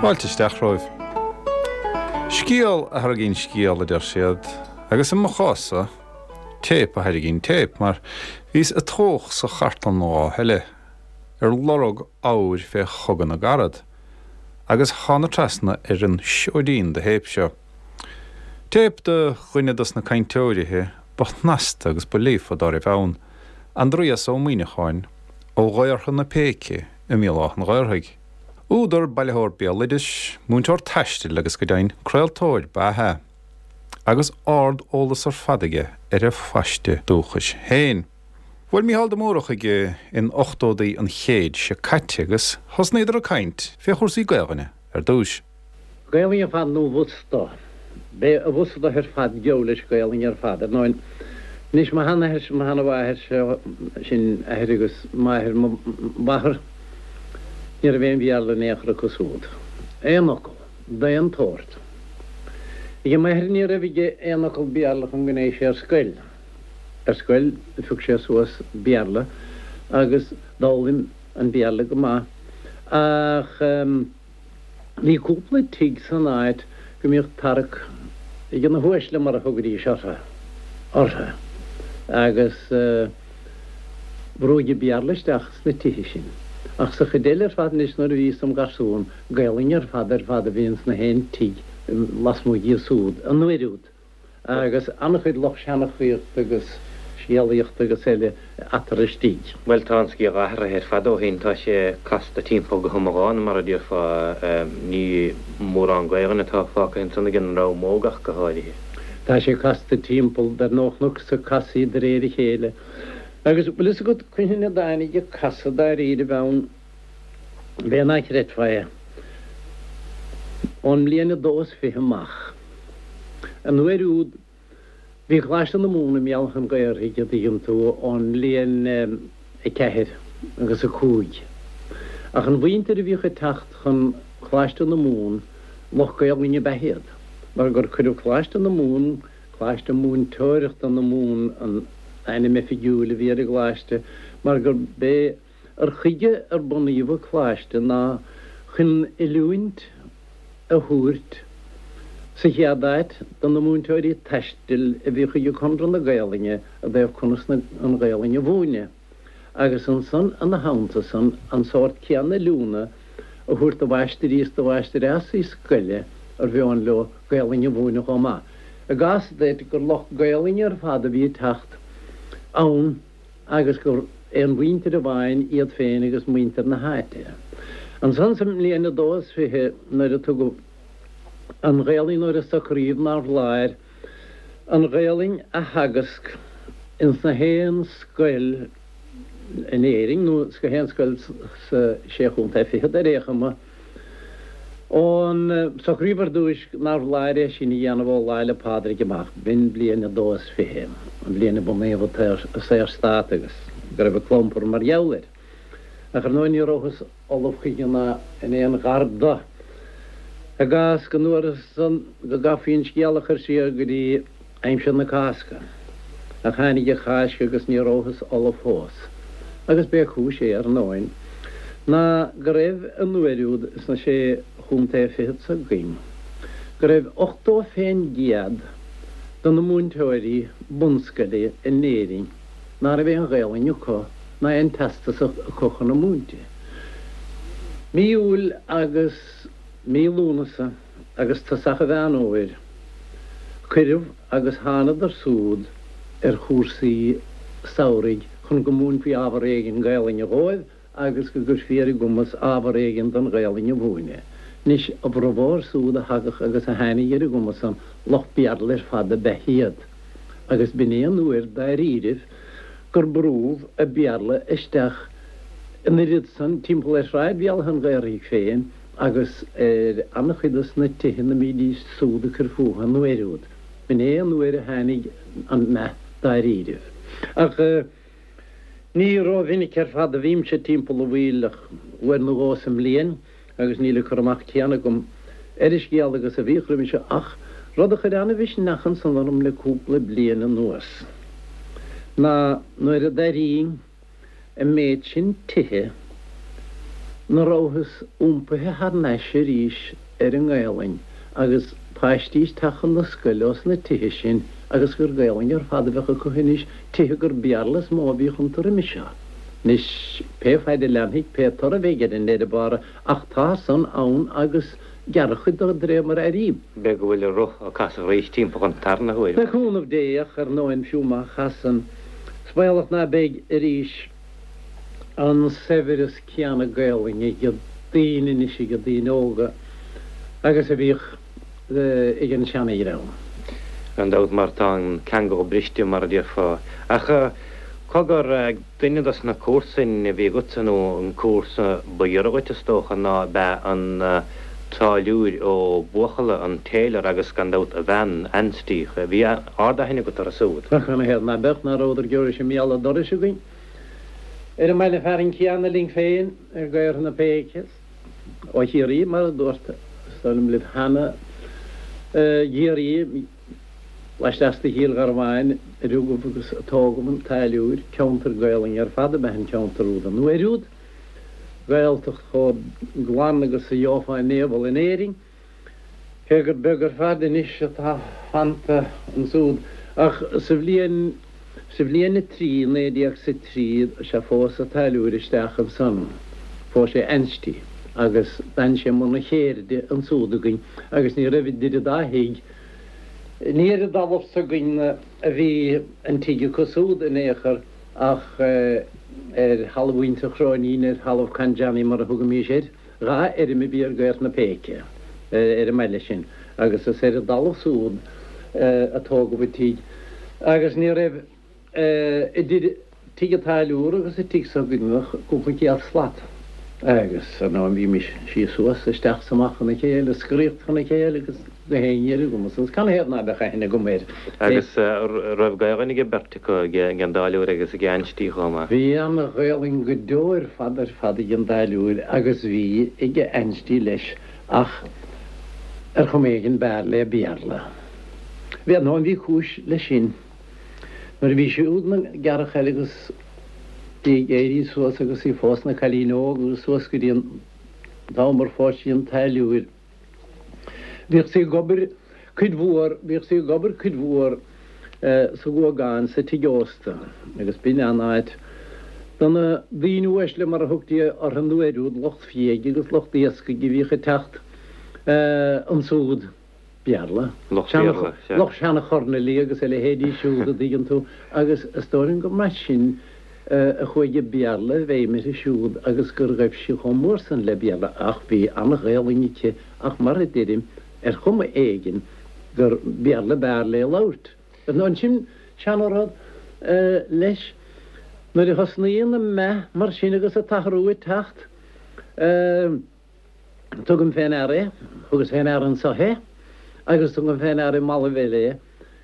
Fáilte isteach romhaibh. Scéal a thairgíonn scéal, a deir siad, agus i mo chás-sa, téip a thairgíonn téip, mar bhíos ag tóch sa chartlann an lá eile, ar lorg abhair fé Chogadh na gCarad, agus thána trasna ar an seoidín de théip seo. Téip de dhuine dos na cainteoirithe ba shnasta agus ba líofa dá raibh ann, Aindrias Ó Muimhneacháin, ó Ghaorthadh na Péice i mBéal Átha an Ghaorthaidh. Údar, bailitheoir béaloidis, múinteoir taistil agus go deimhin craoltóir ba ea é, agus ard-eolas ar fad aige ar a phaiste dúchais féin. Bhuail Mícheál de Mórdha chuige in ochtódaí an chéid seo caite agus thosnaíodar ag caint fé chúrsaí Gaelainne ar dtúis. Gaelainn ar fad nó bhusta. B'é a bhusta ar fad geall leis Gaelainn ar fad. Ar ndóin, anois mo sheanathair, mo sheanamháthair, sin athair agus máthair mo mháthar, ní raibh aon Bhéarla in aon chor acu súd. Aon fhocal. D'aon tsórt. Ag m'athair ní raibh aige aon fhocal Béarla chun go ndeachaigh sé ar scoil. Ar scoil phioc sé suas Béarla agus d'fhoghlaim an Béarla go maith ach bhí cúpla tigh san áit go mbíodh tarrac ag na huaisle mar a thugaidís orthu, orthu agus brúigeadh Béarla isteach sna tithe sin. Ach sa chuid eile ar fad anois nuair a bhíos im gharsún, Gaelainn ar fad ar fad a bhí ins na haon tigh lasmuigh díobh súd an uair úd. agus an-chuid lucht seanchaíochta agus scéalaíochta agus eile eatarthu istigh. Bhuel, tá an scéal athraithe ar fad ó shin. Tá sé casta timpeall go hiomlán, mar a déarfá. Ní mórán Gaelainne atá fágtha ansan ag an ndream óg ach go háirithe. Tá sé casta timpeall, dar ndóigh, chonac sa casadh de réir a chéile. Agus bhfuil fhios agat cathain a dtáinig an casadh dáiríribh ann? B'fhéidir ná creidfeá é. Ón mbliain a dó is 20 amach. An uair úd, bhí Coláiste na Mumhan i mBéal Átha an Ghaorthaidh, a dtuigeann tú, ón mbliain 4 agus 5. Ach an mhuintir a bhíodh ag teacht chun Coláiste na Mumhan, lucht Gaelainne ab ea iad, mar gur cuireadh Coláiste na Mumhan, Coláiste Múinteoireachta na Mumhan an ainm oifigiúil a bhí ar an gcoláiste, mar gurb é Cur chuige ar bunaíodh an coláiste ná chun oiliúint a thabhairt sa chéad áit do na múinteoirí taistil a bhíodh ag Conradh na Gaelainne i dtaobh conas an Ghaelainn a mhúineadh agus ansan ina theannta san an sórt céanna oiliúna a thabhairt do mháistirí is do mháistreásaí scoile ar mheon leo Gaelainn a mhúineadh chomh maith. I gcás duit gur lucht Gaelainne ar fad a bhí ag teacht ann, agus gur é an mhuintir amháin iad féin agus muintir na háite. Ansan sa mbliain a dó is 20 nuair a tugadh an Ghaelainn nuair a socraíodh nár bhfoláir an Ghaelainn a theagasc ins na haon scoil in Éirinn nó sna haon scoil sa Sé Chontae Fichead ar aon chuma, Ón socraíodh ar dtúis nár bhfoláir é sin a dhéanamh ó Lá 'le Pádraig amach, b'in bliain a dó is 20, an bhliain a bunaíodh an Saorstát agus go raibh an clompar mar gheall air. Ach ar ndóigh ní rabhthas ullamh chuige ná in aon ghar do. I gcás go ndúrthas san go gcaithfí an scéal a chur siar go dtí aimsir na Cásca. Ach tháinig an Cháisc agus ní rabhthas ullamh fós. Agus b'é cúis é, ar ndóin, ná go raibh an uair úd sna Sé Chontae Fichead s'againn, go raibh 80% de na múinteoirí bunscoile in Éirinn ná raibh aon Ghaelainn acu ná aon teastas acu chun a múinte. Mí Iúil agus mí Lúnasa agus tosach an Mheán Fhómhair, cuireadh agus thánadar súd ar chúrsaí samhraidh chun go múinfí ábhar éigin Gaelainne dhóibh agus go gcuirfí ar a gcumas ábhar éigin den Ghaelainn a mhúineadh. Anois, a bhformhór súd a thagadh agus a tháinig ar an gcuma san, lucht Béarla ar fad ab ea iad, agus b'in é an uair dáiríribh gur brúdh an Béarla isteach an oiread san timpeall ar Shráid Bhéal Átha an Ghaorthaidh féin agus ar an-chuid dos na tithe 'na mbídís súd ag cur fúthu an uair úd. B'in é an uair a tháinig an meath dáiríribh. Ach ní rómhinic ar fad a bhímse timpeall an Mhaoil ach uair nó dhó sa mbliain agus níl an cur amach céanna agam ar an scéal agus a bhíodh roimhe seo ach rud a chuir an-mhisneach ansan orm le cúpla bliain anuas ná nuair a d'airínn an méid sin tithe. Ná rabhthas iompaithe thar n-ais arís ar an nGaelainn agus paistí ag teacht chun na scoile ós na tithe sin agus gur Gaelainn ar fad a bheadh acu anois, tithe gur Béarla is mó a bhíodh iontu roimis seo. Anois, pé faid a leanfaidh, pé toradh a bheidh air i ndeireadh bára, ach tá san ann agus gearradh cuid de de réir mar a airím. B'fhéidir go bhfuil an roth ag casadh arís timpeall an tarna huair. Le cúnamh Dé, ach ar ndóin fiú má chasann, is baolach ná beidh arís. an saibhreas céanna Gaelainne ag daoine anois, ag daoine óga, agus a bhíodh ag an seana-dhream. Gan dabht, mar tá an ceangal briste, mar a déarfá. Ach cogar, duine dos na comharsain a bhí agatsa, nó an comharsa ba ghiorra dhuit, is dócha, ná ab ea an Táilliúir Ó Buachalla, an tailor, agus gan dabht a bhean, Ansty. Bhí ard-aithne agat orthu súd. Ach canathaobh ná beadh, ná rabhadar giorra sé míle dorais againn. Ar an mbaile fearainn céanna linn féin, ar Gaorthadh na Péice, ó Chiarraí, mar a dúrt, is dóigh liom, libh cheana, i gCiarraí, laisteas de Chill Gharbháin, a rugadh agus a tógadh an Táilliúir, ceantar Gaelainne ar fad ab ea an ceantar úd an uair úd, Gaeltacht chomh glan agus a gheofá in aon bhall in Éirinn. Cé gur beag ar fad anois atá fanta ansúd, ach sa bhliain, sa bhliain a trí, 1903, sea, phós a' táilliúir isteach ansan, phós sé Ansty, agus d'fhan sé i mbun a cheirde ansúd againn, agus ní raibh idir an dá thigh, ní ar an dtalamh s'againn a bhí an tigh acu súd in aon chor, ach ar thalamh mhuintir Chróinín, ar thalamh Con Johnny mar a thugaimís air. Dha fheirm a bhí ar Gaorthadh na Péice ar an mbaile sin agus is ar an dtalamh súd a tógadh an tigh agus ní raibh idir tigh an táilliúra agus an tigh s'againne ach cúpla céad slat agus ar ndóigh bhímis síos suas, isteach 's amach chun a chéile, scoraíocht chun a chéile agus gach aon ní ar an gcuma san. Canathaobh ná beadh aithne agam air? Agus raibh Gaelainn ag an beirt acu, ag an dtáilliúir agus ag Ansty chomh maith? Bhí an-Ghaelainn go deo ar fad ar fad ag an dtáilliúir agus bhí ag Ansty leis ach ar chuma éigin b'fhearr léi Béarla. Bhí, ar ndóigh bhí cúis leis sin. Nuair a bhí siúd ina gearrchaile agus í ag éirí suas agus í fós ina cailín óg agus suas go dtí an t-am ar phós sí an táilliúir, Bhíodh sí ag obair cuid mhór, bhíodh sí ag obair cuid mhór sa Ghuagán, sa tigh ósta, agus b'in an áit do na daoine uaisle, mar a thugtaí orthu an uair úd, lucht fiaigh agus lucht iascaigh a bhíodh ag teacht ansúd. Béarla. Lucht Béarla, sea. Lucht seana-chornailí agus a leithéidí siúd, a dtuigeann tú, agus is dóigh liom gur mar sin a chuaigh an Béarla i bhfeidhm uirthi siúd agus gur ghaibh sí chomh mór san le Béarla ach bhí an-Ghaelainn aici ach mar a deirim, ar chuma éigin gur Béarla b'fhearr léi labhairt. Ansin, seana-rud leis, nuair a thosnaíonn an meath mar sin agus an t-athrú ag teacht, tugaim fé ndeara é, thugas fé ndeara anso é agus tugaim fé ndeara i mballaibh eile é,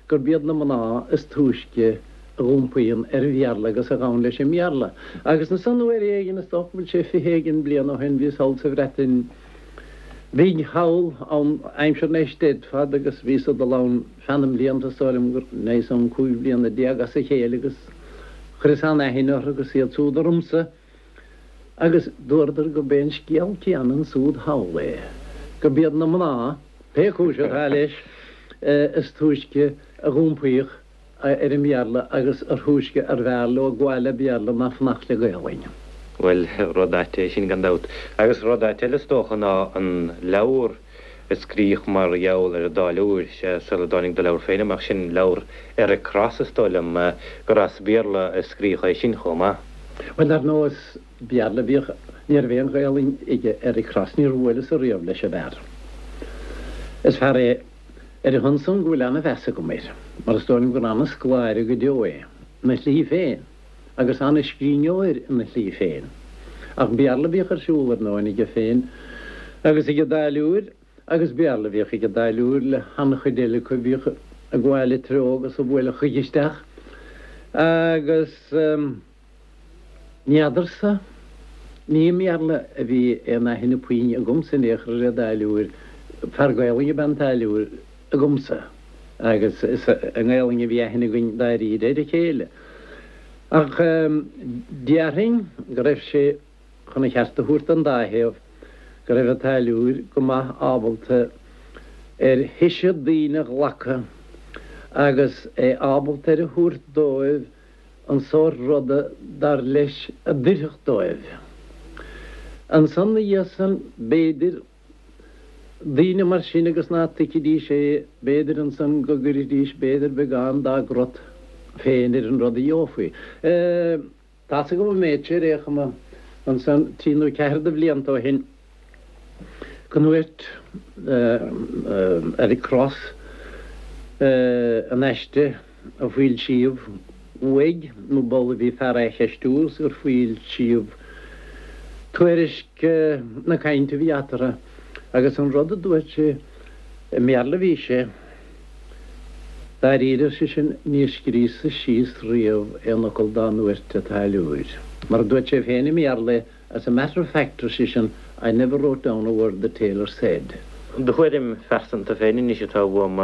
gurb iad na mná is túisce a dh'iompaíonn ar an Bhéarla agus a ghabhann leis an mBéarla. Agus ansan uair éigin, is dócha go bhfuil sé 20 éigin bliain ó shin, bhíos thall sa Bhreatain Bhig thall ann aimsir na Eisteddfod agus bhíos ag dul ann feadh na mblianta, is dóigh liom gur ndeaghas ann 15 bliana as a chéile agus chuireas an-aithne orthu agus iad súd ormsa. Agus dúradar gurb é an scéal céanna ansúd thall é, gurb iad na mná, pé cúis atá leis, is túisce a dh'iompaíodh ar an mBéarla agus ar thúisce arbh fhearr leo gabháil le Béarla ná fanacht le Gaolainn. Bhuel, rud ait é sin gan dabht. Agus rud ait eile is dócha ná an leabhar a scríodh mar gheall ar an dtáilliúir, sea, sula dtáinig do leabhar féin amach, sin leabhar Eric Cross is dóigh liom, gur as Béarla a scríodh é sin chomh maith. Bhuel, dar ndóigh, is Béarla a bhíodh, ní raibh aon Ghaelainn aige Eric Cross, níor bhuaileas-sa riamh leis an bhfear. Is fear é ar a shon san go bhfuil ana-mheas agam air, mar is dóigh liom gur ana-scoláire go deo é, ina shlí féin, agus ana-scríbhneoir ina shlí féin. Ach Béarla a bhíodh ar siúl, ar ndóigh, aige féin agus ag an dtáilliúir, agus Béarla a bhíodh ag an dtáilliúir le han-chuid eile acu a bhíodh ag gabháil a treo agus a bhuaileadh chuige isteach. Agus n'fheadarsa, ní i mBéarla a bhí aon aithne puinn agamsa in aon chor ar an dtáilliúir, fear Gaelainne ab ea an táilliúir agamsa agus is i nGaelainn a bhí aithne againn dáiríre ar a chéile. Ach déarfainn go raibh sé. chun an cheart a thabhairt don dá thaobh, go raibh an táilliúir go maith ábalta ar thoise daoine a ghlacadh agus é ábalta ar a thabhairt dóibh an sórt ruda dar leis a d'oirfeadh dóibh. Ansan 'na dhiaidh san, b'fhéidir, daoine mar sin agus ná tuigfidís é, b'fhéidir ansan go gcuirfidís b'fhéidir beagán dá gcrot féin ar an rud a gheofaí. Tá's agam an méid seo ar aon chuma ansan trí nó ceathair de bhlianta ó shin go ndúirt Eric Cross in aiste a foilsíodh uaidh nó b'amhlaidh a bhí fear á cheistiú is gur foilsíodh tuairisc na cainte a bhí eatarthu agus an rud a dúirt sé i mBéarla a bhí sé. Dáiríre, ar seisean, níor scríos-sa síos riamh aon fhocal dá ndúirt an táilliúir. Mar a dúirt sé féin i mBéarla é, as a matter of fact, ar seisean, I never wrote down a word that Taylor said. Do thuairim phearsanta féin anois atá uaim,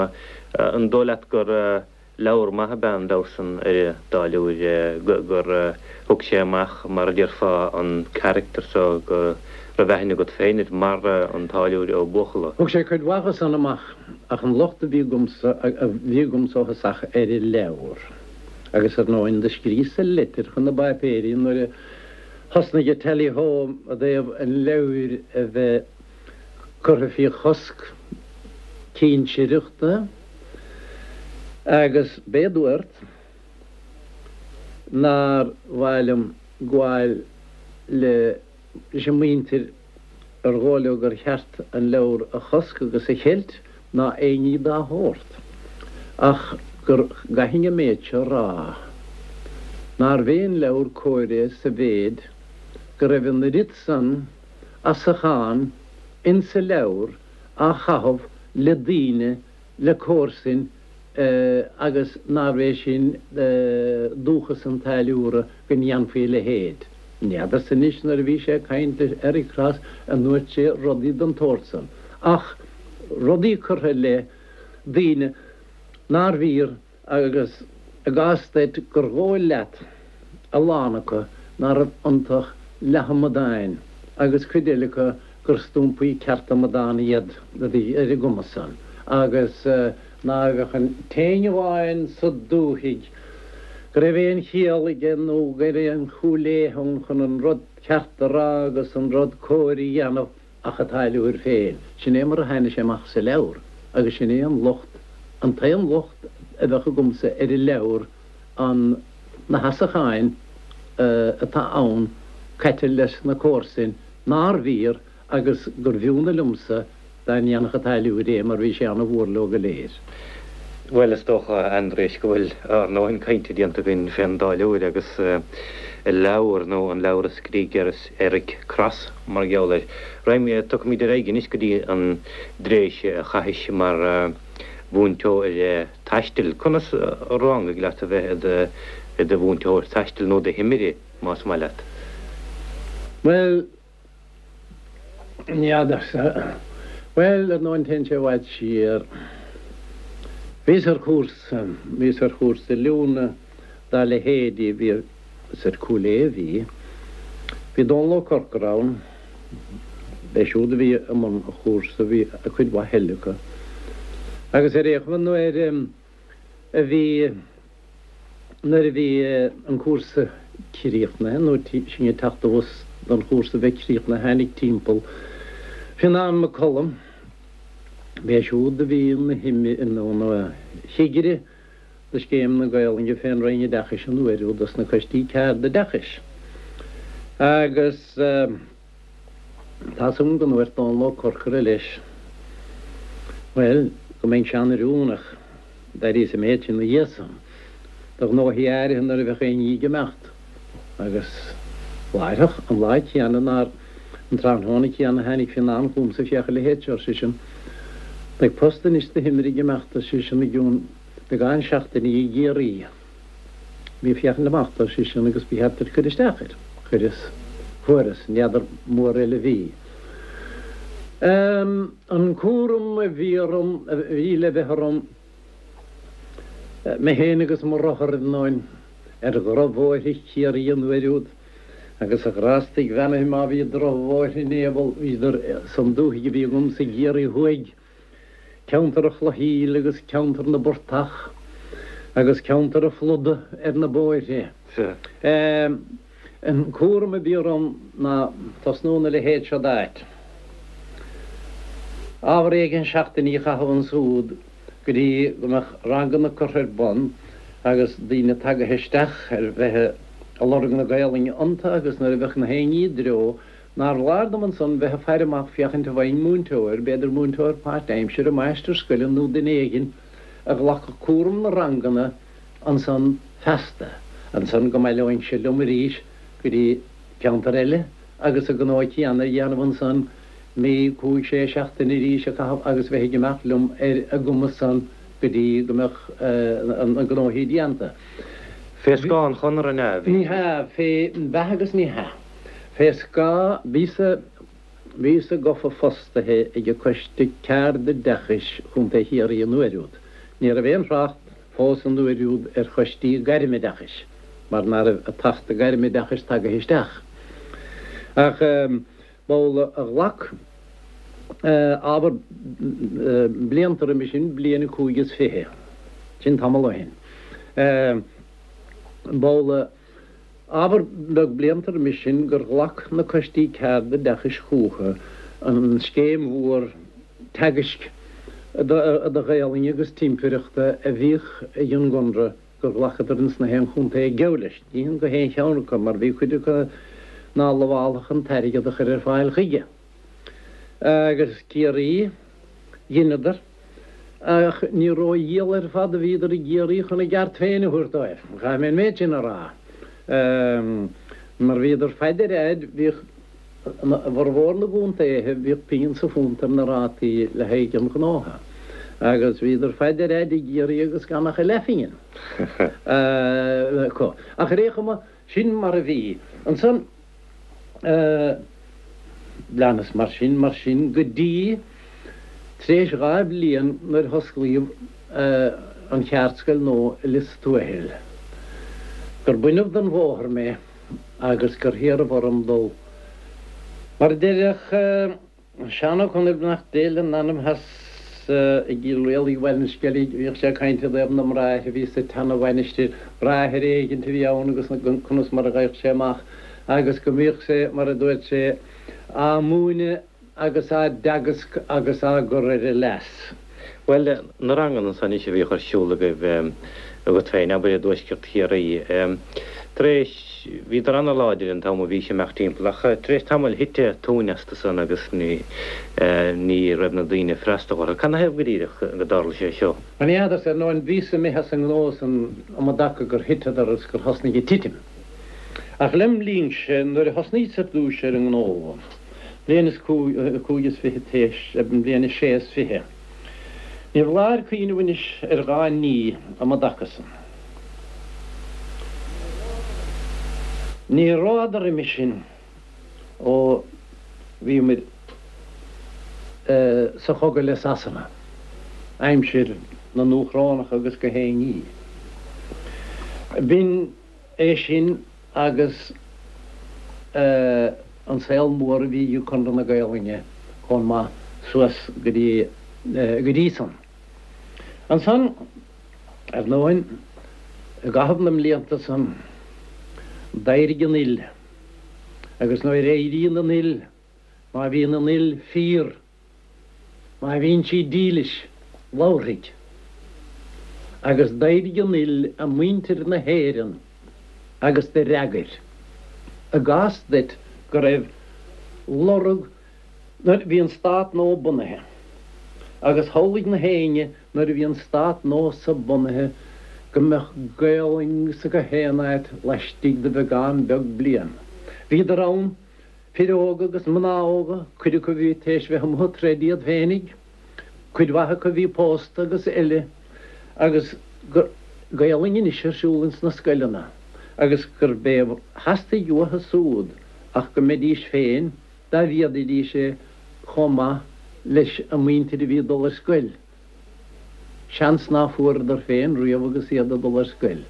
an dóigh leat gur Leabhar maith ab ea an leabhar san ar an dtáilliúir gur thug sé amach, mar a déarfá, an character so go raibh aithne agat féin air mar an Táilliúir Ó Buachalla. Thug sé cuid mhaith dho san amach ach an locht a bhí agamsa, a bhí agamsa ó thosach ar an leabhar agus ar ndóin do scríos-sa litir chun na bpáipéirí nuair a thosnaigh an Tally Ho i dtaobh an leabhair a bheith curtha faoi chosc cinsireachta. Agus b'é a dúrt nár mhaith liom gabháil leis an muintir ar dhóigh leo gur cheart an leabhar a chosc agus a cheilt ná aon ní dá shórt, ach gur gcaithfinn an méid seo a rá, nárbh é an leabhar cóir é sa mhéid go raibh an oiread san asachán insa leabhar á chaitheamh le daoine, le comharsain agus nárbh é sin dúchas an táilliúra go ndéanfaí a leithéid. N'fheadarsa anois nuair a bhí sé ag caint le Eric Cross an ndúirt sé rudaí den tsórt san, ach rudaí curtha i leith daoine nár bhfíor agus i gcás duit gur dhóigh leat a lán acu ná raibh iontu ach leath-amadáin agus cuid eile acu gur stumpaí ceart amadán iad a bhí ar an gcuma san agus ná bheadh an t-éinne amháin sa dúthaigh go raibh aon chiall aige nó go raibh aon chúil léith ann chun an rud ceart a rá agus an rud cóir a dhéanamh ach an táilliúir féin. Sin é mar a tháinig sé amach sa leabhar agus sin é an locht, an t-aon locht a bheadh agamsa ar an leabhar, an, na hasacháin atá ann caite leis na comharsain nár bhfíor agus gur bh'iúnadh liomsa dá ndéanfadh an táilliúir é mar bhí sé ana-mhór leo go léir. Bhuel, is dócha, a Aindriais, go bhfuil ár ndóthain cainte déanta againn fén dtáilliúir agus a leabhar, nó an leabhar a scrígh Eric Cross mar gheall air. Raghaimid, tiocfaimid ar aghaidh anois go dtí an dtréimhse a chaithis mar mhúinteoir taistil. Conas a ráinigh leat a bheith i do mhúinteoir taistil, nó do thimire, más maith leat? Bhuel, N'fheadarsa. Bhuel, ar ndóin téann sé i bhfad siar. Bhíos ar chúrsa, bhíos ar chúrsa oiliúna dá leithéidí, bhí, is ar Cúil Aodha a bhí. Bhí Dónal Ó Corcora ann, b'é siúd a bhí i mbun an chúrsa, bhí cuid mhaith eile acu. Agus ar aon chuma nuair a bhí, Nuair a bhí an cúrsa críochnaithe, nó sinn ag teacht abhus don chúrsa a bheith críochnaithe, tháinig timpeall Fionán Mac Coluim, b'é siúd a bhí ina chigire do Scéim na Gaolainne fén Roinn Oideachais an uair úd dos na coistí ceardoideachais. Agus tá's agam go ndúirt Dónal Ó Corcora leis, bhuel, go mbeinnse an-oiriúnach. D'airíos an méid sin ina dhiaidh san do ghnóthaí áirithe nuair a bheadh aon ní ag imeacht, agus láithreach, an lá céanna nár, an tráthnóna céanna tháinig Fionán chugamsa, féach a leithéid seo, ar seisean, beidh post anois do thimire ag imeacht, ar seisean, i gcionn beagán seachtainí i gCiarraí. Bí ag féachaint amach dó, ar seisean, agus ba cheart duit cur isteach air. Chuireas. Fuaireas. N'fheadar mór eile a bhí. An cúram a bhí orm, a bhí le bheith orm, mé féin agus mo rothar, ar ndóin, ar dhrochbhóithre Chiarraí an uair úd. Agus a ghrástaigh bheannaithe má bhí drochbhóithre in aon bhíodar san dúthaigh a bhí agamsa i gCiarraí Thuaidh, ceantar an Chlochshill agus ceantar na bportach agus ceantar an phluda ar na bóithre. An cúram a bhí orm ná tosnú ina leithéid seo d'áit. Ábhar éigin seachtainí a chaitheamh ansúd go dtí go mbeadh ranganna curtha ar bun agus daoine tagaithe isteach ar bheith ag lorg na Gaolainne iontu agus nuair a bheadh na haon ní i dtreo nár bhfoláir dom ansan bheith ag faire amach féachaint an bhfaighinn múinteoir, b'fhéidir múinteoir páirt-aimsire, máistir scoile nó duine éigin a ghlacfadh cúram na ranganna ansan feasta. Ansan go mbaileoinnse liom arís go dtí ceantar eile agus an gnó céanna a dhéanamh ansan, mí, cúig, sé seachtaine arís a chaitheamh agus bheith ag imeacht liom ar an gcuma san go dtí go mbeadh na gnóthaí déanta. Fé scáth an Chonartha an ea? Ní hea, fé, b'ea agus ní hea. Fé scáth, bhíos-sa, bhíos-sa gofa fostaithe ag an Coiste Ceardoideachais Chontae Chiarraí an uair úd. Ní raibh aon thrácht fós an uair úd ar choistí gairmoideachais mar ná raibh an tAcht Gairmoideachais tagaithe isteach. Ach b'amhlaidh a ghlac ábhar blianta roimhe sin, bliain 25, sin tamall ó shin, b'amhlaidh ábhar beag blianta roimhe sin gur ghlac na coistí ceardoideachais chucu an scéim mhór teagaisc do Ghaolainn agus timpireachta a bhíodh ag an gConradh gur ghlacadar ins na haon chontae ag gabháil leis. Ní hin go haon cheann acu mar bhí cuid acu ná lamhálfadh an t-airgead a chur ar fáil chuige. Agus Ciarraí, dheineadar, ach ní rófhial ar fad a bhíodar i gCiarraí chun a gceart féin a thabhairt dóibh, caithfidh mé an méid sin a rá. Mar bhíodar fad ar fhaid, bhíodh i bhformhór na gcontaetha, bhíodh pingin sa phunt ar na rátaí le haghaidh an ghnótha, agus bhíodar fad ar fhaid i gCiarraí agus gan ach a leathphingin acu. Ach ar aon chuma, sin mar a bhí. Ansan, leanas mar sin, mar sin, go dtí tar éis dha bhliain nuair a hosclaíodh an cheardscoil nua i Lios Tuathail, gur baineadh den bhóthar mé agus gur hiarradh orm dul. Mar a deireadh Seán Ó Conaill, beannacht Dé lena anam as i gCill Rialaigh Bhaile an Sceilg, bhíodh sé ag caint i dtaobh na mbráithre a bhí sa tseana-mhainistir, bráthair éigint a bhí ann agus conas mar a gheibheadh sé amach agus go mbíodh sé, mar a dúirt sé, á múineadh agus á dteagasc agus á gcur ar a leas. Bhuel, na ranganna ansan anois a bhíodh ar siúl agaibh, agat féin, abair i dtuaisceart Chiarraí, tar éis, bhíodar ana-láidir an t-am a bhís ag imeacht timpeall ach tar éis tamaill thit tóin astu san agus ní, ní raibh na daoine ag freastal orthu. Cad 'na thaobh go díreach go dtarla sé seo? Ní fheadarsa, ar ndóin, bhíos imithe as an ngnó san um an dtaca gur thiteadar agus gur thosnaigh ag titim. Ach lem linnse, nuair a thosnaíos ar dtúis ar an ngnó, bliain is 25 théis, bliain is 26. Ní foláir cuimhneamh anois ar dhá ní um an dtaca san. Ní rabhadar roimhe sin ó bhíomair sa chogadh le Sasana, aimsir na nDúchrónach agus gach aon ní. B'in é sin agus an saol mór a bhí ag Conradh na Gaelainne chomh maith suas go dtí go dtí san. Ansan, ar ndóin, i gcaitheamh na mblianta san, d'éirigh an fhuil, agus nuair a éiríonn an fhuil, má bhíonn an fhuil fíor, Má bhíonn sí dílis, labharfaidh. Agus d'éirigh an fhuil i muintir na hÉireann agus do fhreagair. I gcás duit go raibh lorg nuair a bhí an stát nua bunaithe. Agus shamhlaigh na héinne nuair a bhí an stát nua so bunaithe go mbeadh Gaolainn sa gach aon áit laistigh de bheagán beag bliain. Bhíodar ann Fir óga agus mná óga, cuid acu a bhí tar éis bheith amuigh ag troid iad féinig, cuid mhaith acu a bhí pósta agus eile, agus Gaolainn anois ar siúl ins na scoileanna, agus gurb é a theastaigh uathu súd ach go mbeidís féin, dá bhféadfaidís é, chomh maith leis an muintir a bhí ag dul ar scoil. Seans ná fuaireadar féin riamh agus iad ag dul ar scoil.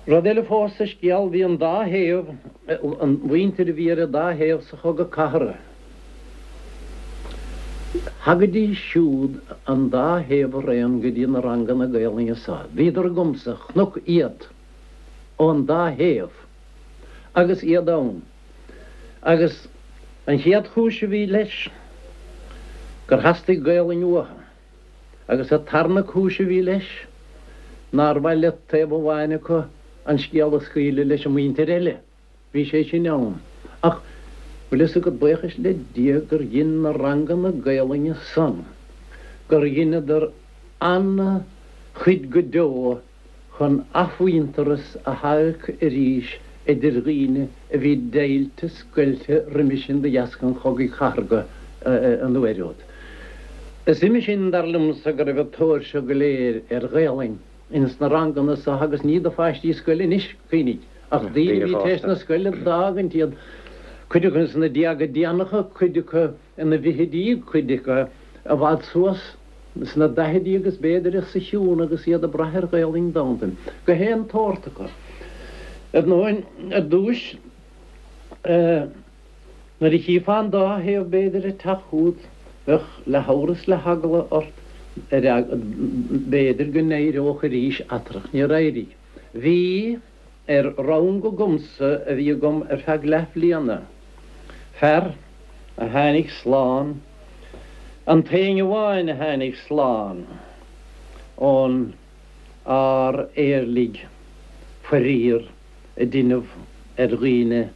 Rud eile fós sa scéal, bhí an dá thaobh, an mhuintir a bhí ar an dá thaobh sa Chogadh Cathartha, thagaidís siúd an dá thaobh araon go dtí na ranganna Gaelainne so. Bhíodar agamsa, chonac iad ón dá thaobh agus iad ann. Agus an chéad chúis a bhí leis, gur theastaigh Gaelainn uathu. Agus an tarna cúis a bhí leis, nár mhaith le taobh amháin acu an scéal a scaoileadh leis an muintir eile. Bhí sé sin ann. Ach, bhfuil fhios agat, buíochas le Dia gur dhein na ranganna Gaelainne san, gur dheineadar ana-chuid go deo chun athmhuintearas a theacht arís idir dhaoine a bhí deighilte scoilte roimhe sin de dheasca an Chogaidh Chathartha an uair úd. Is uime sin, dar liomsa, go raibh an tóir seo go léir ar Ghaelainn ins na ranganna so agus ní do pháistí scoile anois, cuimhnigh, ach daoine a bhí tar éis na scoile d'fhágaint, iad, cuid acu ins na déaga déanacha, cuid acu ina bhfichidí, cuid acu i bhfad suas. Sna daichidí agus b'fhéidir os a chionn agus iad ag brath ar Ghaelainn d'fhoghlaim gach aon tsórt acu. Ar ndóin, ar dtúis, nuair a chífeá an dá thaobh b'fhéidir ag teacht chugat, bheadh le hamhras le heagla ort ar b'fhéidir go n-éireodh arís eatarthu. Níor éirigh. Bhí ar rang agamsa a bhí agam ar feadh leathbhliana, fear a tháinig slán, an t-éinne amháin a tháinig slán ón ár éirligh faraor a deineadh ar dhaoine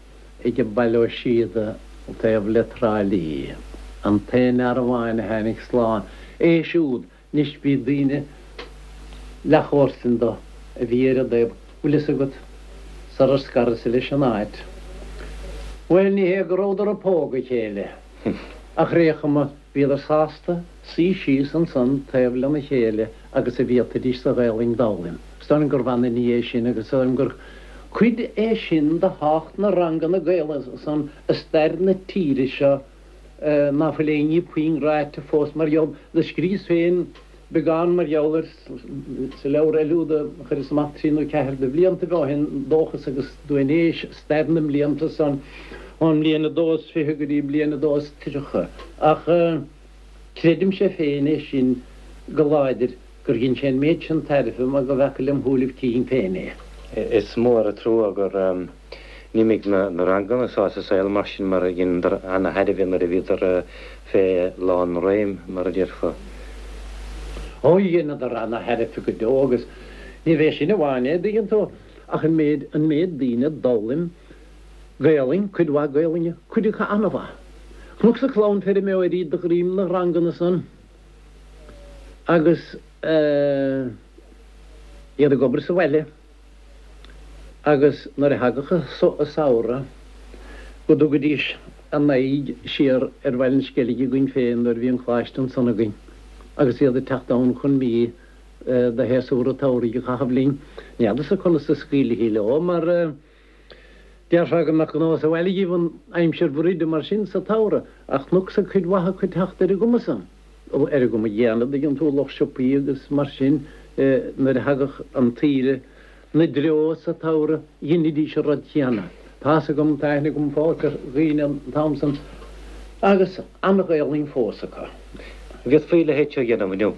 ag Baile Ó Síoda taobh le Trá Lí, an t-aon fhear amháin a tháinig slán, é siúd Anois bhí daoine leathchomharsan do a bhí ar an dtaobh, bhfuil fhios agat, sarar scaras-sa leis an áit. Bhuel, ní hé go rabhadar ag pógadh a chéile, ach ar aon chuma bhíodar sásta suí síos ansan taobh lena chéile agus a bhféadfaidís sa Ghaelainn d'fhoghlaim. Is dóigh liom gurbh ana ní é sin agus is dóigh liom gur cuid é sin de thábhacht na ranganna Gaelainne san i stair na tíre seo ná fuil aon ní puinn ráite fós mar gheall. Do scríos féin beagán mar gheall air sa leabhar eile úd a chuireas amach trí nó ceathair de bhliantaibh ó shin, Dóchas agus Duainéis, stair na mblianta san, ón mbliain a dó is fiche go dtí bliain a dó is triocha. Ach creidimse féin é sin go láidir. gur dhein sé an méid sin tairbhe mar go bhfeaca lem shúilibh cinn féin é. Is mór an trua gur imigh na ranganna so as an saol mar sin mar dheineadar ana-thairbhe nuair a bhíodar fé lán réim, mar a déarfá. Ó, dheineadar ana-thairbhe go deo agus ní bhé sin amháin é, dtuigeann tú, ach an méid, an méid daoine d'fhoghlaim Gaelainn, cuid mhaith Gaelainne, cuid acu ana-mhaith. Chonacsa clann feirmeoirí de dhroim na ranganna san. agus iad ag obair sa bhaile agus nuair a thagadh an samhradh go dtugaidís a n-aghaidh siar ar Bhaile an Sceilg againn féin nuair a bhí an coláiste ansan againn agus iad ag teacht ann chun mí de shéasúr an tsamhraidh a chaitheamh linn. Ní fheadarsa conas a scaoilfí leo mar déarfá go mbeadh gnó sa bhaile dhíobh an aimsir bhruide mar sin sa tsamhradh ach chonacsa cuid mhaith acu ag teacht ar an gcuma san. ar an gcuma chéanna, dtuigeann tú, lucht siopaí agus mar sin, nuair a thagadh an tsaoire 'na dtreo sa tsamhradh, dheinidís an rud céanna. Tá's agam, tá aithne agam fós ar dhaoine an t-am san agus an-Ghaelainn fós acu. Bhféadfaí a leithéid seo a dhéanamh inniu,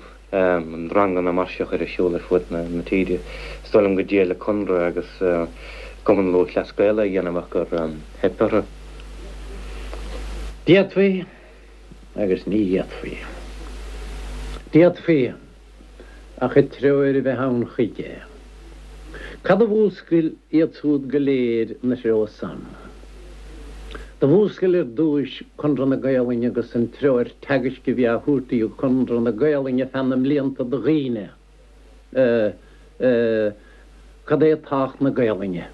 ranganna mar seo a chur ar siúl ar fud na tíre. Is dóigh liom go dtriail an Conradh agus Cumann Lúthchleas Gael é a dhéanamh ach gur theip orthu. D'fhéadfaí. agus ní fhéadfaí. D'fhéadfaí, ach an treoir a bheith ann chuige. Cad a mhúscail iad súd go léir 'na threo san? Do mhúscail ar dtúis Conradh na Gaelainne agus an treoir teagaisc a bhí á thabhairt ag Conradh na Gaelainne feadh na mblianta do dhaoine, cad é tábhacht na Gaelainne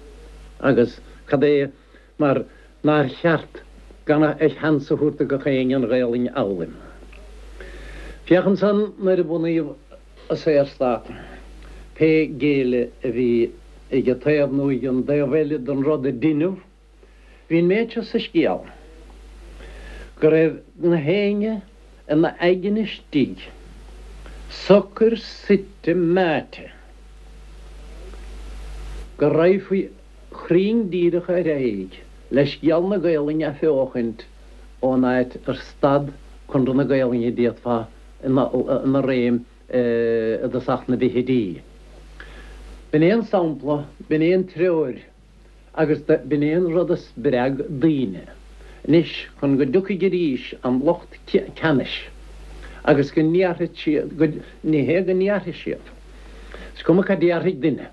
agus cad é mar nár cheart gan a sheans a thabhairt do gach éinne an Ghaelainn a fhoghlaim. Féach ansan nuair a bunaíodh an Saorstát, pé géilleadh a bhí ag an taobh nó ag an dtaobh eile den rud a deineadh, bhí an méid seo sa scéal, go raibh na héinne ina aigne istigh socair suite meáite. Go raghfaí cruinn díreach ar aghaidh le scéal na Gaolainne a athbheochaint ón áit ar stad Conradh na Gaolainne d'fhéadfá ina réim i dtosach na bhfichidí. B'in é an sampla, b'in é an treoir agus b'in é an rud a spreag daoine. Anois, chun go dtiocfaidh arís an lucht ceannais agus go ndéarfaidh siad, ní hé go ndéarfaidh siad, is cuma cad déarfaidh duine,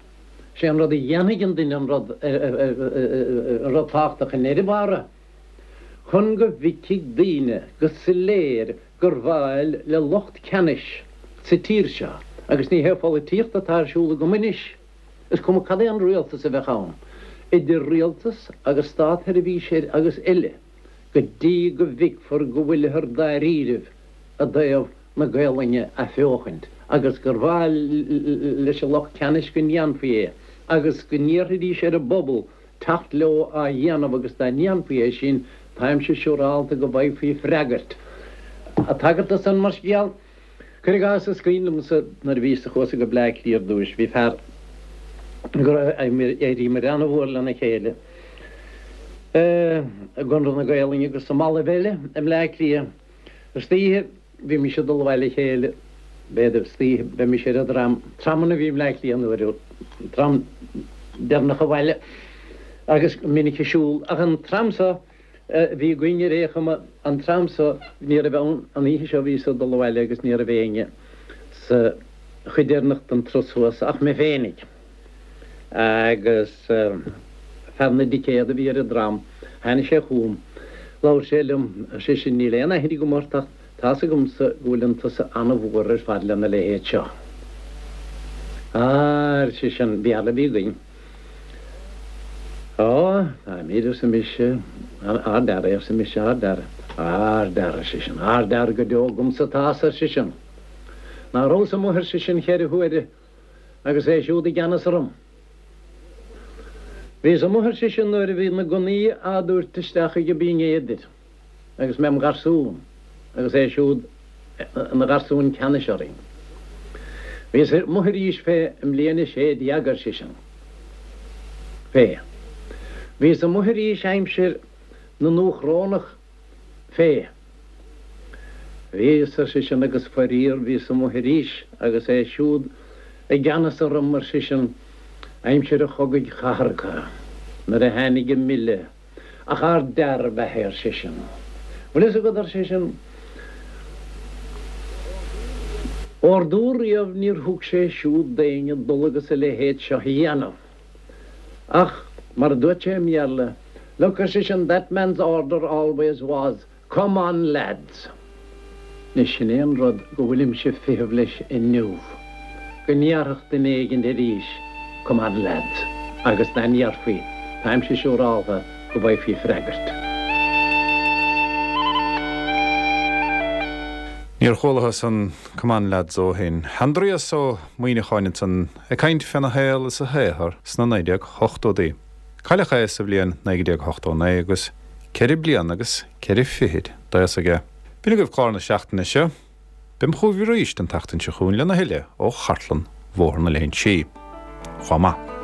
sé an rud a dhéanfaidh an duine an rud, an rud tábhachtach i ndeireadh bára. Chun go bhfeicfidh daoine go soiléir gur mhaith le lucht ceannais sa tír seo, agus ní hé pholaitíocht atá ar siúl agam anois, is cuma cad é an rialtas a bheadh ann, idir rialtas agus státsheirbhíseoir agus eile, go dtí go bhfeicfear go bhfuilthear dáiríribh i dtaobh na Gaolainne a athbheochaint agus gur mhaith leis an lucht ceannais go ndéanfaí é agus go n-iarrfaidís ar an bpobal teacht leo á dhéanamh agus dá ndéanfaí é sin, táimse siúrálta go bhfaighfí freagairt. Ag tagairt do san mar scéal, cuir i gcás, is cuimhin liomsa nuair a bhíos-sa, chuas-sa go Bleá Cliath ar dtúis, bhí fear go raibh, d'éiríomar ana-mhór lena chéile i gConradh na Gaolainne agus i mballaibh eile i mBleá Cliath. Istoíche Bhímis ag dul abhaile le chéile, b'fhéidir, istoíche, bheimis ar an dtram, tramanna a bhí i mBleá Cliath an uair úd, an tram deireanach abhaile agus go minic ag siúl. Ach an tram so a bhí againn ar aon chuma, an tram so, ní raibh ann, an oíche seo bhíos ag dul abhaile agus ní raibh éinne sa chuid deireanach den turas thuas ach mé féinig. Agus fear na dticéad a bhí ar an dtram, tháinig sé chugam, labhair sé liom, ar seisean, níl aon aithne agam ort ach tá's agamsa go bhfuileann tusa an-mhór ar fad lena leithéid seo. Á, ar seisean, Béarla a bhí againn. Á, táimid, arsa mise, ard-fhear é, arsa mise, ard-fhear. Ard-fhear, ar seisean, ard-fhear go deo agamsa atá's, ar seisean. Ná rabhas amuigh, ar seisean, cheithre huaire agus é siúd i gceannas orm. Bhíos amuigh, ar seisean, nuair a bhí na gunnaí á dtabhairt isteach ag Binn Éadair agus mé im gharsún agus é siúd ina gharsún ceannais orainn. Bhíos amuigh arís fé i mbliain a 16, ar seisean. Fé. Bhíos amuigh arís aimsir na nDúchrónach Fé. Bhíos, ar seisean, agus faraor bhíos amuigh arís agus é siúd i gceannas orm, ar seisean, aimsir an chogaidh chathartha, nuair a tháinig an milleadh, ach ardfhear ab ea é, ar seisean. Bhfuil fhios agat, ar seisean, ordú riamh níor thug sé siúd d'éinne dul agus a leithéid seo a dhéanamh. Ach, mar a dúirt sé i mBéarla, Look, ar seisean, that man's order always was, come on lads! Anois, sin é an rud go bhfuilimse ag feitheamh leis inniu, go ndéarfadh duine éigin arís, come on lads, agus dá ndéarfaí, táimse siúráltha go bhfaighfí freagairt. Níor chualathas an come on lads ó shin. Aindrias Ó Muimhneacháin ansan ag caint féna shaol is a shaothar sna 1980idí. Cailleadh é sa bhliain 1989 agus ceithre bliana agus ceithre fichid d'aos aige. B'in agaibh clár na seachtaine seo. Beam chugaibh arís an tseachtain seo chugainn lena thuilleadh ó chartlann Bhóthar na Léinsí. Chomh maith.